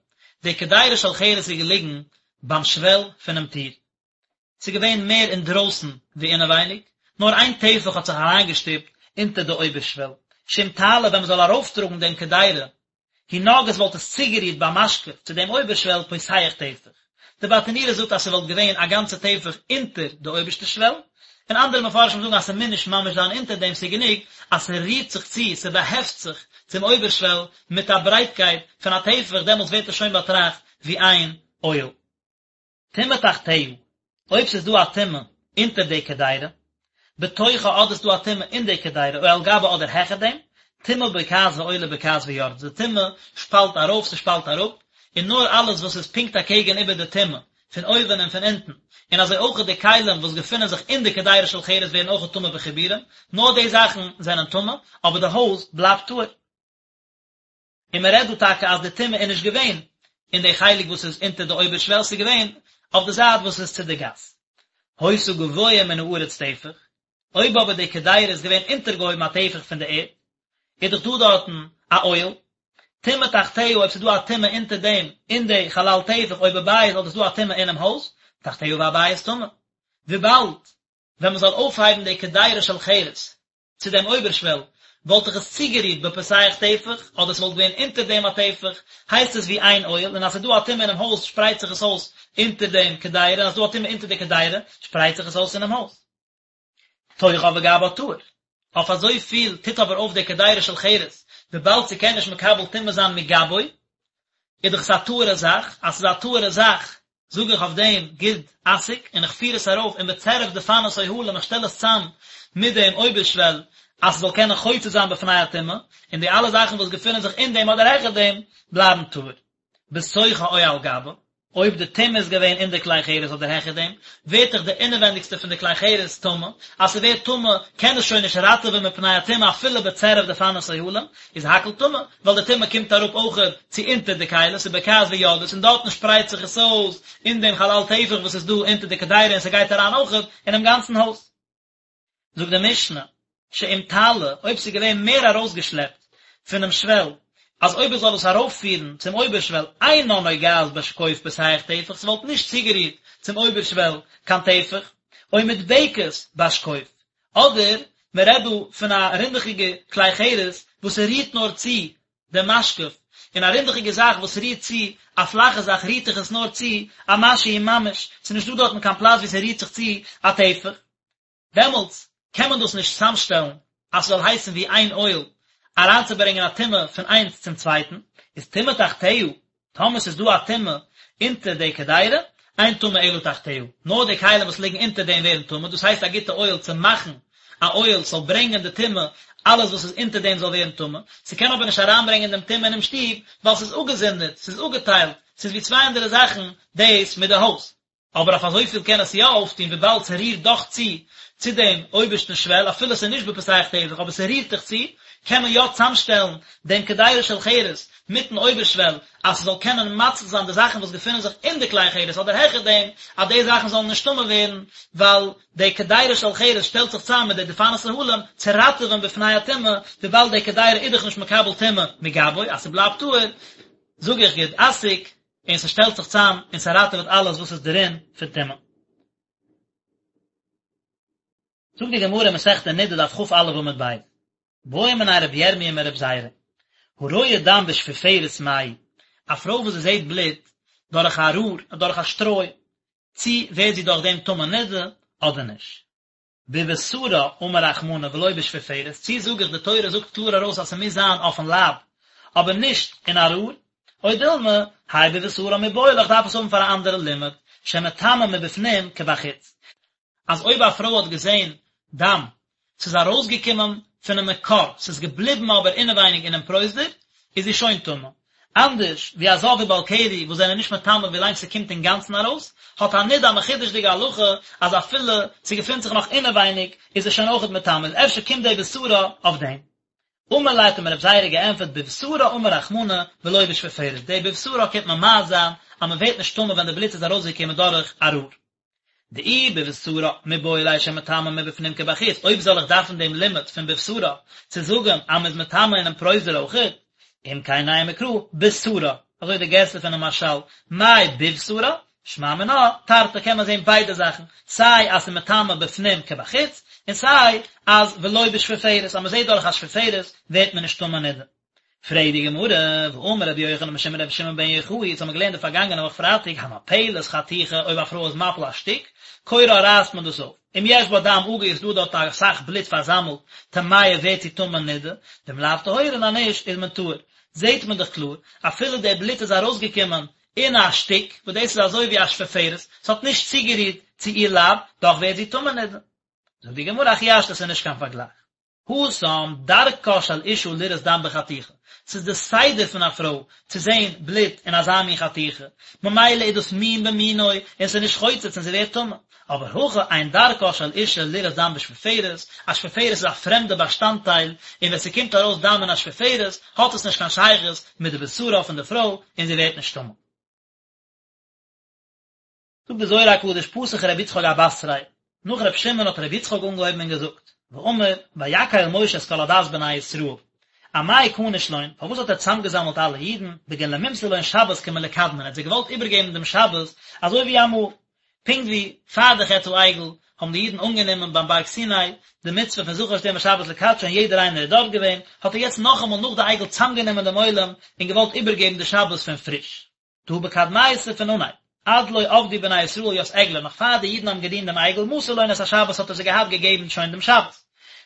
די קדירה של חרס איז געליגן ביים שוועל פונעם טיר. ס'איז געווען מער אינדרויסן ווי אינעווייניג, נאר איין טפח האט זיך אריינגעשטופט אונטער די אויבערשוועל. שאם תעלה ווען מ'זאל ארויפטראגן דעם קדירה, היא נוגעת וואלט עס צוגערירט במשקוף צו דעם אויבערשוועל פותח טפח. די ברטנורא זאגט אז ס'וואלט געווען א גאנצע טפח אונטער די אויבערשטע שוועל, און אנדערע מפרשים זאגן אז ס'מוז נישט ממש זיין אונטער דעם ס'איז גענוג אז ס'רירט זיך צו, ס'באהעפט זיך צום אויבערשוועל מיט א ברייטקייט פון א טפח דעמאלטס ווערט עס שוין באטראכט ווי איין אוהל. טומאה תחתיה, אויב ס'איז דא א טומאה אונטער די קדירה, בתוכה אדער ס'איז דא א טומאה אין די קדירה או על גבה אדער העכער דעם, טומאה בוקעת ועולה בוקעת ויורדת, די טומאה שפאלט ארויף ס'שפאלט אראפ, און נאר אלעס וואס איז פונקט אקעגן איבער די טומאה, פון אויבן און פון אונטן, און אזוי אויך די כלים וואס געפונען זיך אין די קדירה של חרס ווערן אויך טמא בחיבורים, נאר די זאכן זענען טמא, אבער די הויז בלייבט טהור. און מען רעדט דא טאקע אז די טומאה איז נישט געווען אין די חלק וואס איז אונטער די אויבערשוועל, ס'איז געווען אויף די זייט וואס איז צו די גאס. היתה גבוה מן הארץ טפח, אויב אבער די קדירה איז געווען אונטערגעהויבן א טפח פון די ערד, איז דאך דא דארטן א אוהל, טומאה תחתיה אויב ס'איז דא א טומאה אונטער דעם אין די חלל טפח או בבית אדער ס'איז דא א טומאה אינעם הויז, תחתיה והבית טמא. וויבאלד ווען מען זאל אויפהייבן די קדירה של חרס צו דעם אויבערשוועל, וואלט איך עס צוגערירט בפותח טפח, אדער ס'וואלט געווען אונטער דעם א טפח, הייסט עס ווי איין אוהל, און אז ס'איז דא א טומאה אינעם הויז שפרייט זיך עס אויס אונטער דעם קדירה, און אז ס'איז דא א טומאה אונטער די קדירה, שפרייט זיך עס אויס אינעם הויז. תוכה וגבה טהור. אויף אזוי פיל טוט אבער אויף די קדירה של חרס, וויבאלד ס'קען נישט מקבל טומאה זיין מגבו, איז דאך עס א טהור'ע זאך, אז ס'איז א טהור'ע זאך, זאג איך אויף דעם גוד אסיק און איך פיר עס ארויף און בצירוף דפנות אוהלים איך שטעל עס צאם מיט דעם אויבערשוועל אז ס'זאל קענען חוצץ זיין בפני הטומאה, און די אלע זאכן וואס געפינען זיך אין דעם אדער העכער דעם בלייבן טהור. בתוכה או על גבה, אויב די טומאה איז געווען אין די כלי חרס אדער העכער דעם, ווערט דאך די אינעווענדיגסטע פון די כלי חרס טמא, אז ס'ווערט טמא קען עס שוין נישט ראטעווען מפני הטומאה אפילו בצירוף דפנות אוהלים, איז הכל טמא, ווייל די טומאה קומט אראפ אויכעט צו אונטער די כלי, ס'איז בוקעת ויורדת, און דארטן שפרייט זיך עס אויס אין דעם חלל טפח וואס איז דא אונטער די קדירה און ס'גייט אריין אויכעט אינעם גאנצן הויז. זאגט די משנה, שאם תעלה, אויב ס'איז געווען מער ארויסגעשלעפט פונעם שוועל, אז אויב עס זאל עס ארויפפירן צום אויבערשוועל אינה נוגעת בשקוף פותח טפח, ס'וואלט נישט צוגערירט צום אויבערשוועל קיין טפח, או מודבקת בשקוף, אדער מען רעדט דא פון א רינדעכיגע כלי חרס וואס ס'רירט נאר צו דעם משקוף, און א רינדעכיגע זאך וואס רירט צו א פלאכע זאך רירט זיך עס נאר צו א משהו ממש, ס'איז נישט דא דארטן קיין פלאץ וואו ס'רירט זיך צו א טפח, דעמאלטס קען מען דאס נישט צאמשטעלן אז ס'זאל הייסן ווי איין אוהל אריינצוברענגען א טומאה פון איינס צום צווייטן, איז טומאה תחתיה, טאמער ס'איז דא א טומאה אונטער די קדירה, אין טמא אלא תחתיה, נאר די כלים וואס ליגן אונטער דעם ווערן טמא, דאס הייסט א גוטע אוהל צו מאכן א אוהל ס'זאל ברענגען די טומאה, אלעס וואס איז אונטער דעם זאל ווערן טמא, ס'קען אבער נישט אריינברענגען דעם טומאה אינעם שטוב, ווייל ס'איז אפגעזונדערט, ס'איז אפגעטיילט, ס'איז ווי צוויי אנדערע זאכן דאס מיט די הויז. אבער אויף אזויפיל קען עס יא אויפטון וויבאלד ס'רירט דאך צו צו דעם אויבערשטן שוועל אפילו ס'איז נישט בפותח טפח אבער ס'רירט דאך צו, קען מען יא צאמשטעלן דעם קדירה של חרס מיטן אויבערשוועל אז ס'זאל קענען מציל זיין די זאכן וואס געפינען זיך אין די כלי חרס אדער העכער דעם אז די זאכן זאלן נישט טמא ווערן ווייל די קדירה של חרס שטעלט זיך צאם מיט די דפנות אהלים צו ראטעווען בפני הטומאה וויבאלד די קדירה איז דאך נישט מקבל טומאה מגבו אז ס'בלייבט טהור זאג איך גוד אסיק און ס'שטעלט זיך צאם און ס'ראטעוועט אלעס וואס איז דערין פון טומאה. זאגט די גמרא אין מסכת נדה דף כ"א עמוד ב', בעא מיניה רבי ירמיה מרבי זירא, הרואה דם בשפופרת מהו, א פרוי וואס זי זעט בלוט דורך א רור, דורך א שטרוי, צי ווערט זי דורך דעם טמא נדה אדער נישט? בבשרה אמר רחמנא ולא בשפופרת, צי זאג איך די תורה זאגט קלאר ארויס אז ס'מוז זיין אויפן לייב, אבער נישט אין א רור, או דילמא, האי בבשרה מיבעי ליה איך דארף עס האבן פאר א אנדערע לימוד, שמטמא מבפנים כבחוץ. אז אויב א פרוי האט געזען דם, ס'איז ארויסגעקומען פונעם מקור, ס'איז געבליבן אבער אינעווייניג אינעם פרוזדור, איז זי שוין טמא. אנדערש ווי א זב ובעל קרי וואס זענען נישט מטמא ווילאנג ס'קומט אינגאנצן ארויס, האט א נידה א מחודש'דיגע הלכה אז אפילו ס'געפינט זיך נאך אינעווייניג איז עס שוין אויכעט מטמא, איז אפשר קומט די בשרה אויף דעם. אמר ליה האט אים רב זירא געענטפערט בבשרה אמר רחמנא ולא בשפופרת, די בבשרה קומט ממעט זיין אז מ'ווערט נישט טמא ווען די בלוט איז ארויסגעקומען דורך א רור. דאי בבשרה מיבעי ליה שמטמאה מבפנים כבחוץ, אויב זאל איך דארפן דעם לימוד פון בבשרה צו זאגן אז מ'איז מטמא אינעם פרוזדור אויכעט, אם כן נימא קרא בשרה, אזוי די גירסא פונעם מהרש"ל, מאי בבשרה, שמע מינה, תרתי קען מען זען ביידע זאכן, סיי אז ס'איז מטמא בפנים כבחוץ, און סיי אז ולא בשפופרת, אז מ'זעט דורך א שפופרת ווערט מען נישט טמא נידה. פרעגט די גמרא, והאמר רבי יוחנן משום רבי שמעון בן יוחאי, אונז האבן געלערנט די פארגאנגענע וואך פרייטאג, המפלת חתיכה, אויב א פרוי איז מפיל א שטיק, קורעה רייסט מען דאס אויף, אם יש בה דם אגור איז דא דארט אסאך בלוט פארזאמלט, טמאה ווערט זי טמא נידה, ואם לאו טהורה און אז נישט איז מען טהור. זעט מען דאך קלאר, אפילו דער בלוט איז ארויסגעקומען אין א שטיק, וואס דאס איז אזוי ווי א שפופרת, ס'האט נישט צוגערירט צו איר לייב, דאך ווערט זי טמא נידה. זאגט די גמרא, הכי השתא ס'איז נישט קיין פארגלייך. התם, דרכה של אשה לראות דם בחתיכה, ס'איז די סדר פון א פרוי צו זען בלוט אין אזא מין חתיכה, ממילא איז דאס מין במינו און ס'איז נישט חוצץ און זי ווערט טמא. אבער הכא אין דרכה של אשה לראות דם בשפופרת, א שפופרת איז א פרעמדע באשטאנדטייל, און ווען ס'קומט ארויס דם אין א שפופרת, האט עס נישט קיין שייכות מיט די בשרה פון די פרוי און זי ווערט נישט טמא. זאגט די זוהר הקדוש פתח רבי יצחק אבתריה, נאך רבי שמעון האט רבי יצחק אנגעהויבן און געזאגט, ואמר, ויקהל משה את כל עדת בני ישראל, אמאי כניש לון, פארוואס האט ער צוזאמגעזאמלט אלע אידן, בגין למימסר לון שבת כמלקדמן, ער האט זיי געוואלט איבערגעבן דעם שבת אזוי ווי אמאל, פונקט ווי פאר די חטא העגל האבן די אידן אנגענומען ביים בארג סיני די מצוה פון זכור את יום השבת לקדשו און יעדער איינער איז דארט געווען, האט ער יעצט נאכאמאל נאך די עגל צוזאמגענומען דעם עולם און געוואלט איבערגעבן די שבת פון פריש. דהא בקדמיתא פון אנהייב, עד לא עבדו בני ישראל ית עגלא, נאך פאר די אידן האבן געדינט דעם עגל, מסר לון את השבת האט ער זיי געהאט געגעבן שוין דעם שבת.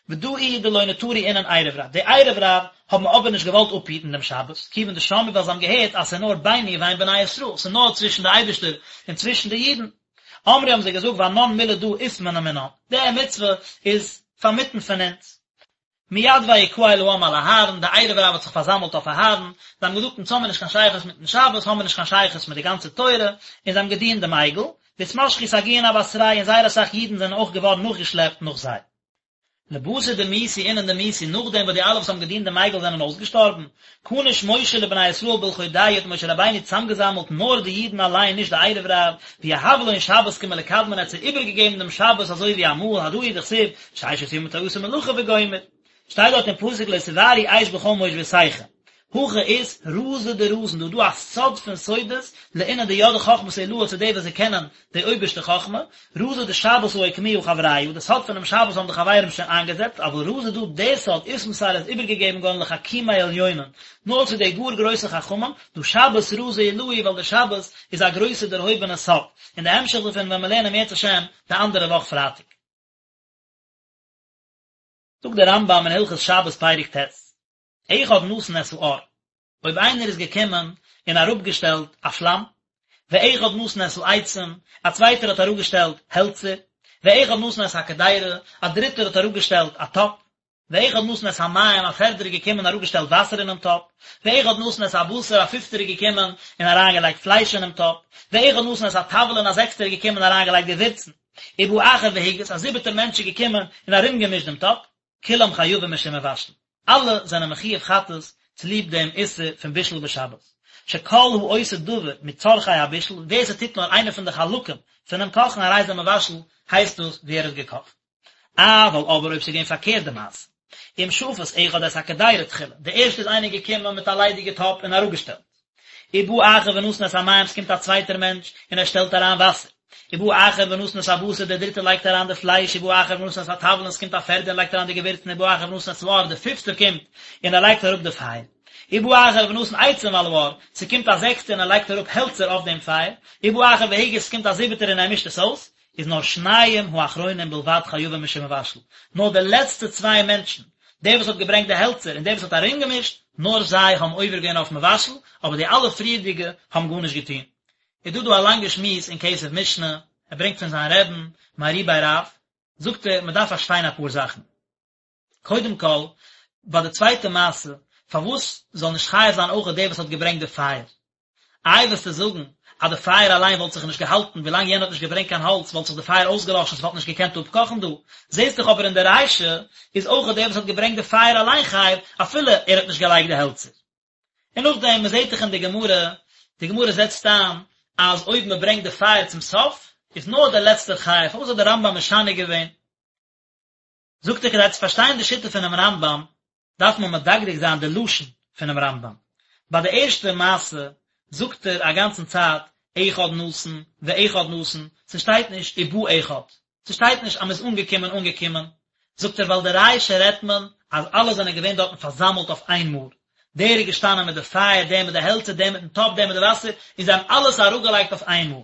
ודא איהו דלא נטרו אינון ערב רב, די ערב רב האבן אבער נישט געוואלט אפהיטן דעם שבת, כיוון דשמעו ווייל זיי האבן געהערט אז ס'איז נאר ביני ובין בני ישראל, ס'איז נאר צווישן די אייבערשטער און צווישן די אידן. אמרי האבן זיי געזאגט ואנן מילי דא אתמנע מינן, די מצוה איז פארמיטן פון אונז. מיד ויקהל העם על אהרן, די ערב רב האט זיך פארזאמלט אויף אהרן, זיי האבן געזאגט אונז האמיר נישט קיין שייכות מיטן שבת, האמיר נישט קיין שייכות מיט די גאנצע תורה, און זיי האבן געדינט דעם עגל, ואתמשכו סגיאין אבתרייהו און זייער אסאך אידן זענען אויך געווארן נאכגעשלעפט נאך זיי. לבתר דמיתו אינון דמיתו, נאכדעם וואס די אלע וואס האבן געדינט דעם עגל זענען אויסגעשטארבן, כניש משה לבני ישראל בלחודייהו האט משה רבינו צוזאמגעזאמלט נאר די אידן אליין נישט די ערב רב, ויהב לון שבת כמלקדמן ער האט זיי איבערגעגעבן דעם שבת אזוי ווי אמאל, הדא הוא דכתיב, ששת ימים תעשה מלאכה וגומר. שטייט דארט אין פסוק לא תבערו אש בכל מושבותיכם. הכא אית רזא דרזין, דא איז דא א סוד פון סודות, לאינון דידעי חכמת עילאה צו די וואס זיי קענען די אויבערשטע חכמה, רזא דשבת הא אוקמוה חברייא, די סוד פונעם שבת האבן די חברים שוין איינגעזעצט, אבל רזא דא די סוד אתמסר איז איבערגעגעבן געווארן לחכימי עליונין, נאר צו די גאר גרויסע חכמים, דהא שבת רזא עילאה ווייל די שבת איז א גרויסע דערהויבענע סוד, און די המשך דערפון וועלן מיר לערנען אם ירצה השם די אנדערע וואך פרייטאג. זאגט דער רמב"ם אין הלכות שבת פרק ט', אחד נתן את האור, אויב איינער איז געקומען און אראפגעשטעלט א פלאם, ואחד נתן את העצים, א צווייטער האט אראפגעשטעלט העלצער, ואחד נתן את הקדירה, א דריטער האט אראפגעשטעלט א טאפ, ואחד נתן את המים, א פערדער איז געקומען און אראפגעשטעלט וואסער אינעם טאפ, ואחד נתן את הבשר, א פיפטער איז געקומען און אריינגעלייגט פלייש אינעם טאפ, ואחד נתן את התבלין, א זעקסטער איז געקומען און אריינגעלייגט געווירצן, ובא אחר והגיס, א זיבעטער מענטש איז געקומען און ארומגעמישט דעם טאפ, כולם חייבים משום מבשל, אלע זענען מחיוב חטאת צוליב דעם איסור פון בישול בשבת, שכל העושה דבר מצרכי הבישול, ווער ס'טוט נאר איינע פון די חלקים פונעם קאכן הרי זה מבשל, הייסט דאס ווי ער האט געקאכט. אבל אבער אויב ס'איז געווען פארקערט די מעשה, אם שפת אחד את הקדירה תחילה, די ערשטע איז איינער געקומען מיט א ליידיגע טאפ און אראפגעשטעלט, ובא אחר ונתן את המים ס'קומט א צווייטער מענטש און ער שטעלט אריין וואסער, ובא אחר ונתן את הבשר דער דריטער לייגט אריין די פלייש, ובא אחר ונתן את התבלין ס'קומט א פערדער און לייגט אריין די געווירצן, ובא אחר ונתן את האור די פיפטער קומט און ער לייגט אראפ די פייער, ובא אחר ונתן עצים על האור ס'קומט א זעקסטער און ער לייגט אראפ העלצער אויף דעם פייער, ובא אחר והגיס ס'קומט א זיבעטער און ער מישט עס אויס, איז נאר שניים האחרונים בלבד חייבים משום מבשל, נאר די לעצטע צוויי מענטשן, דער וואס האט געברענגט די העלצער און דער וואס האט ארומגעמישט, נאר זיי האבן עובר געווען אויף מבשל, אבער די אלע פריערדיגע האבן גארנישט געטון. איז דא דא א לאנגע שמועס אין כסף משנה, ער ברענגט פון זיין רעבן, מהר"י בי רב, זאגט ער, מען דארף פארשטיין אפאר זאכן. קודם כל, ביי די צווייטע מעשה, פארוואס זאל נישט חייב זיין אויך דער וואס האט געברענגט די פייער? איי וועסטו זאגן אז די פייער אליין וואלט זיך נישט געהאלטן ווילאנג יענער האט נישט געברענגט קיין האלץ וואלט זיך די פייער אויסגעלאשן ס'וואלט נישט געקענט אפקאכן דא, זעסט דאך אבער אין די רישא איז אויך דער וואס האט געברענגט די פייער אליין חייב אפילו ער האט נישט געלייגט די העלצער. און נאכדעם מען זעט דאך אין די גמרא, די גמרא זעצט איין אז אויב מען ברענגט די פייער צום סוף. איז נאר דער לעצטער חייב, פארוואס האט דער רמב ם משנה געווען? זאגט ער כדי צו פארשטיין די שיטה פונעם רמב ם דארף מען מדקדק זיין די לשון פונעם רמב ם. ביי די ערשטע מעשה זאגט ער א גאנצן צייט אחד נתן ואחד נתן, ס'שטייט נישט ובא אחד, ס'שטייט נישט אז מ'איז אנגעקומען אנגעקומען, זאגט ער ווייל די רישא רעדט מען אז אלע זענען געווען דארטן פארזאמלט אויף איין מאל, דער איז געשטאנען מיט די פייער, דער מיט די העלצער, דער מיטן טאפ, דער מיט די וואסער, און זיי האבן אלעס אראפגעלייגט אויף איין מאל.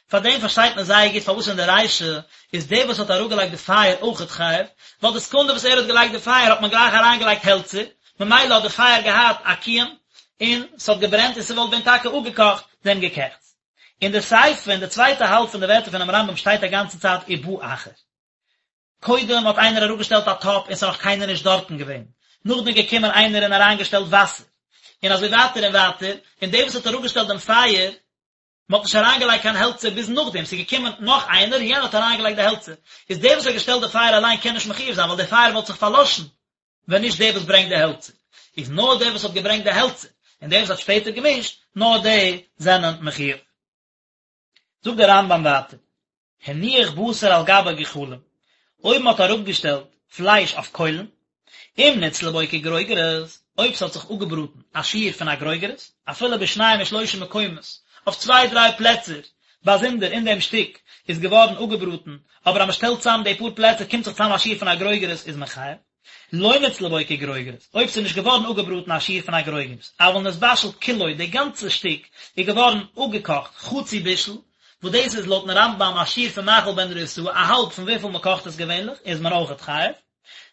פאר דעם פארשטייט מען זייער גוט פארוואס אין די רישא איז דער וואס האט אראפגעלייגט די פייער אויכעט חייב, ווייל די סעקונדע וואס ער האט געלייגט די פייער האט מען גלייך אריינגעלייגט העלצער, ממילא האט די פייער געהאט א קיום און ס'האט געברענט און ס'וואלט ווען טאקע אפגעקאכט דעם געקעכטס. אין די סיפא אין די צווייטע האלב פון די ווערטער פונעם רמב ם שטייט א גאנצע צייט ובא אחר. קודם האט איינער אראפגעשטעלט א טאפ און ס'איז נאך קיינער נישט דארטן געווען, נאכדעם איז געקומען איינער און אריינגעשטעלט וואסער, און אזוי ווייטער און ווייטער, און דער וואס האט אראפגעשטעלט דעם פייער, מען האט נישט אריינגעלייגט קיין העלצער ביז נאכדעם, ס'איז געקומען נאך איינער און יענער האט אריינגעלייגט די העלצער, איז דער וואס האט געשטעלט די פייער אליין קען נישט מחיוב זיין ווייל די פייער וואלט זיך פארלאשן ווען נישט דער וואס ברענגט די העלצער, איז נאר דער וואס האט געברענגט די העלצער און דער וואס האט שפעטער געמישט, נאר די זענען מחיוב. זאגט דער רמב ם ווייטער, הניח בשר על גבי גחלים, אויב מען האט אראפגעשטעלט פלייש אויף קוילן, אם נצלה בו כגרוגרת, אויב ס'האט זיך אפגעבראטן א שיעור פון א גרוגרת, אפילו בשניים ושלושה מקומות, אויף צוויי דריי פלעצער באזונדער אין דעם שטיק איז געווארן אפגעבראטן, אבער אז מען שטעלט צאם די פאר פלעצער קומט זיך צאם א שיעור פון א גרוגרת איז מען חייב. לא נצלה בו כגרוגרת, אויב ס'איז נישט געווארן אפגעבראטן א שיעור פון א גרוגרת, אבל נתבשל כולו, די גאנצע שטיק איז געווארן אפגעקאכט חצי בישול, וואס דאס איז לויטן רמב ם א שיעור פון מאכל בן דרוסאי, א האלב פון וויפיל מ'קאכט עס געווענליך, איז מען אויכעט חייב.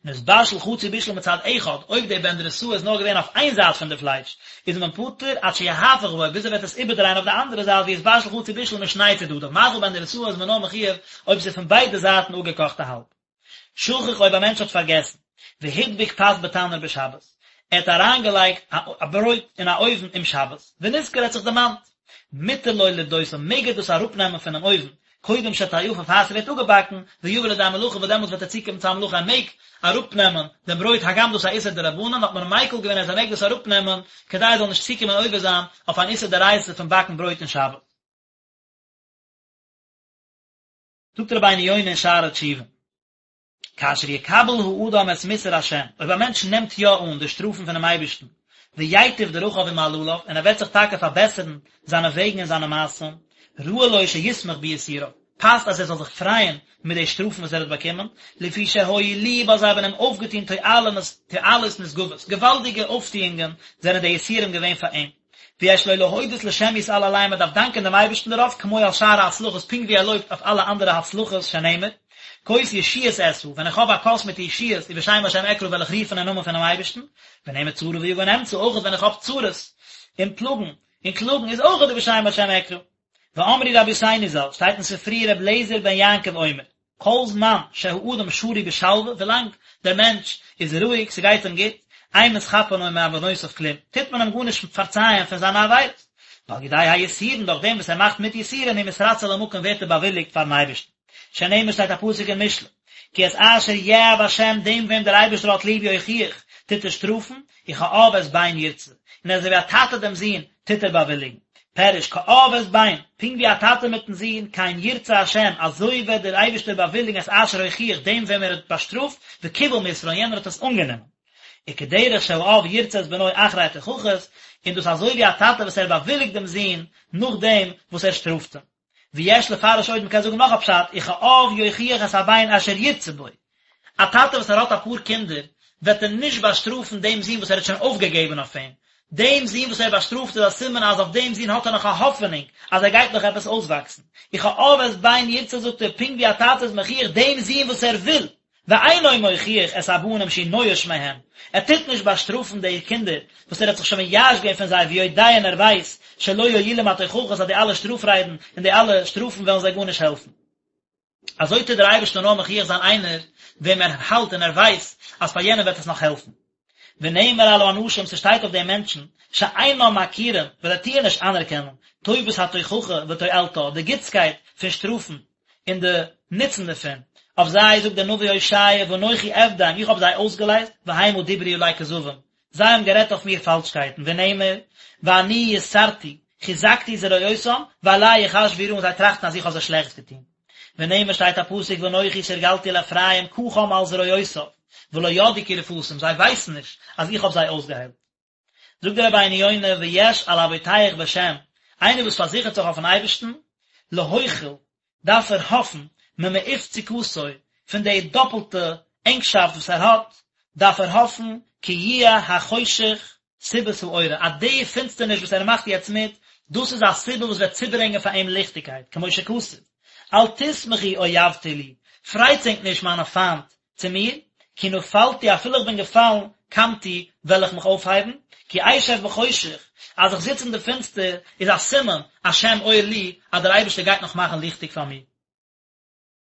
נתבשל חצי בישול מצד אחד, אויב די בן דרוסאי איז נאר געווען אויף איין זייט פון די פלייש, איז מען פטור עד שיהפוך בו, ביז ער וועט עס איבערדרייען אויף די אנדערע זייט ויתבשל חצי בישול משני צדדיו, מאכל בן דרוסאי איז מען נאר מחיוב אויב ס'איז פון ביידע זייטן אפגעקאכט א האלב. שכח אויב א מענטש האט פארגעסן, והדביק פת בתנור בשבת, ער האט אריינגעלייגט א ברויט אין א אויוון אום שבת, ונזכר ער האט זיך דערמאנט, מותר לו לפדותה מעג ער דאס אראפנעמען פונעם אויוון, קודם שתאפה פאר ס'ווערט אפגעבאקן, ויבא לידי מלאכה וואס דעמאלטס וועט ער צוקומען צו א מלאכה ער מעג אראפנעמען דעם ברויט הגם דאס איז א איסור דרבנן האט מען מיקל געווען אז ער מעג דאס אראפנעמען כדי ער זאל נישט צוקומען עובר זיין אויף אן איסור דאורייתא פון באקן ברויט אין שבת. זאגט רבינו יונה אין שערי תשובה, כאשר יקבל האדם את מוסר השם, אויב א מענטש נעמט יא אן די שטראפן פונעם אייבערשטן, וייטיב דרכיו ומעלליו, און ער וועט זיך טאקע פארבעסערן זיינע וועגן און זיינע מעשים, ראוי לו שישמח ביסוריו, פאסט אז ער זאל זיך פרייען מיט די שטראפן וואס ער האט באקומען, לפי שהועילוהו ווייל זיי האבן אים אויפגעטון תועלות נשגבות, געוואלדיגע אויפטוענגען זענען די יסורים געווען פאר אים. ויש לו להודות לשם יתעלה עליהם מען דארף דאנקען דעם אייבערשטן דערויף כמו על שאר ההצלחות פונקט ווי ער לויבט אויף אלע אנדערע הצלחות שנאמר כוס ישועות אשא ווען איך האב א כוס מיט ישועות ובשם השם אקרא וועל איך רופן אין נאמען פונעם אייבערשטן ונאמר צרה ויגון אמצא אויך ווען איך האב צרות און פלאגן און קלאגן איז אויך ובשם השם אקרא ואמרו רבותינו ז"ל שטייט אין ספרי ר' אליעזר בן יעקב אומר כל זמן שהאדם שרוי בשלווה, ווילאנג דער מענטש איז רואיג, ס'גייט אים גוט, אין מתכפרין לו מעוונותיו כלום, טוט מען אים גארנישט פארצייען פון זיינע עבירות, ועל ידי היסורין, דורך דעם וואס ער מאכט מיט יסורין הוא מתרצה למקום ווערט ער באוויליגט פארן אייבערשטן. שנאמר שטייט א פסוק אין משלי, כי את אשר יאהב השם דעם וועם דער אייבערשטער האט ליב יוכיח, טוט ער שטראפן, וכאב את בן ירצה, און אזוי ווי א טאטע דעם זון, טוט ער באוויליגן. פירוש, כאב את בן, פונקט ווי א טאטע מיטן זון, כן ירצה השם, אזוי וועט דער אייבערשטער באוויליגן את אשר הוכיח, דעם וועם ער האט באשטראפט, וקיבל מוסרו, און יענער האט עס אנגענומען. וכדרך שהאב ירצה את בנו אחרי התוכחות, און דאס אזוי ווי א טאטע וואס ער באוויליגט דעם זון נאכדעם וואס ער שטראפט אים. ויש לפרש עוד, מ'קען זאגן נאך א פשט, וכאב יוכיח את הבן אשר ירצה בו, א טאטע וואס ער האט אפאר קינדער, וועט ער נישט באשטראפן דעם זון וואס ער האט שוין אויפגעגעבן אויף אים, דעם זון וואס ער באשטראפט איז א סימן אז אויף דעם זון האט ער נאך א האפענונג אז ער גייט נאך עפעס אויסוואקסן. וכאב את בן ירצה זאגט ער, פונקט ווי א טאטע איז מוכיח דעם זון וואס ער וויל, ואינו מוכיח את הבנים שהוא נואש מהם, ער טוט נישט באשטראפן די קינדער וואס ער האט זיך שוין מייאש געווען פון זיי ויודע און ער ווייסט שלא יועילום התוכחות אז די אלע שטראף ריידן און די אלע שטראפן וועלן זיי גארנישט העלפן. אזוי טוט דער אייבערשטער נאר מוכיח זיין איינער וועם ער האלט און ער ווייסט אז פאר יענעם וועט עס נאך העלפן. ונאמר על האנשים, ס'שטייט אויף די מענטשן, שאינם מכירים, וואס זיי טוען נישט אנערקענען, טובת התוכחה ותועלתה, די גוטסקייט פון שטראפן און די נוצן דערפון, אויף זיי זאגט דער נביא הושע, ואנכי אפדם, איך האב זיי אויסגעלייזט, והמה דברו עלי כזבים, זיי האבן גערעדט אויף מיר פאלשקייטן, ונאמר, ואני יסרתי, חזקתי זרועותם, ועלי יחשבו רעה, און זיי טראכטן אז איך האב זיי שלעכטס געטון. ונאמר שטייט א פסוק ואנכי תרגלתי לאפרים קחם על זרועותיו, ולא ידעו כי רפאתים, זיי ווייסן נישט אז איך האב זיי אויסגעהיילט. זאגט דער רבינו יונה ויש על הבוטח בשם, איינער וואס פארזיכערט זיך אויפן אייבערשטן, להוחיל, דארף ער האפן, ממעוף צוקתו, פון די דאפלטע ענגשאפט וואס ער האט, דארף ער האפן, כי יהיה החושך סיבת האורה, אז די פינסטערניש וואס ער מאכט יעצט מיט, דאס איז א סיבה וואס וועט צוברענגען פאר אים ליכטיגקייט, כמו שכתוב, אל תשמחו אויבתי לי, פרייטס ענק נישט מיינע פיינט צו מיר, כי נפלתי אפילו איך בין געפאלן, קמתי, וועל איך מיך אויפהייבן, כי אשב בחושך, אז איך זיץ אין די פינסטער, איז א סימן, השם אור לי, אז דער אייבערשטער גייט נאך מאכן ליכטיג פאר מיר.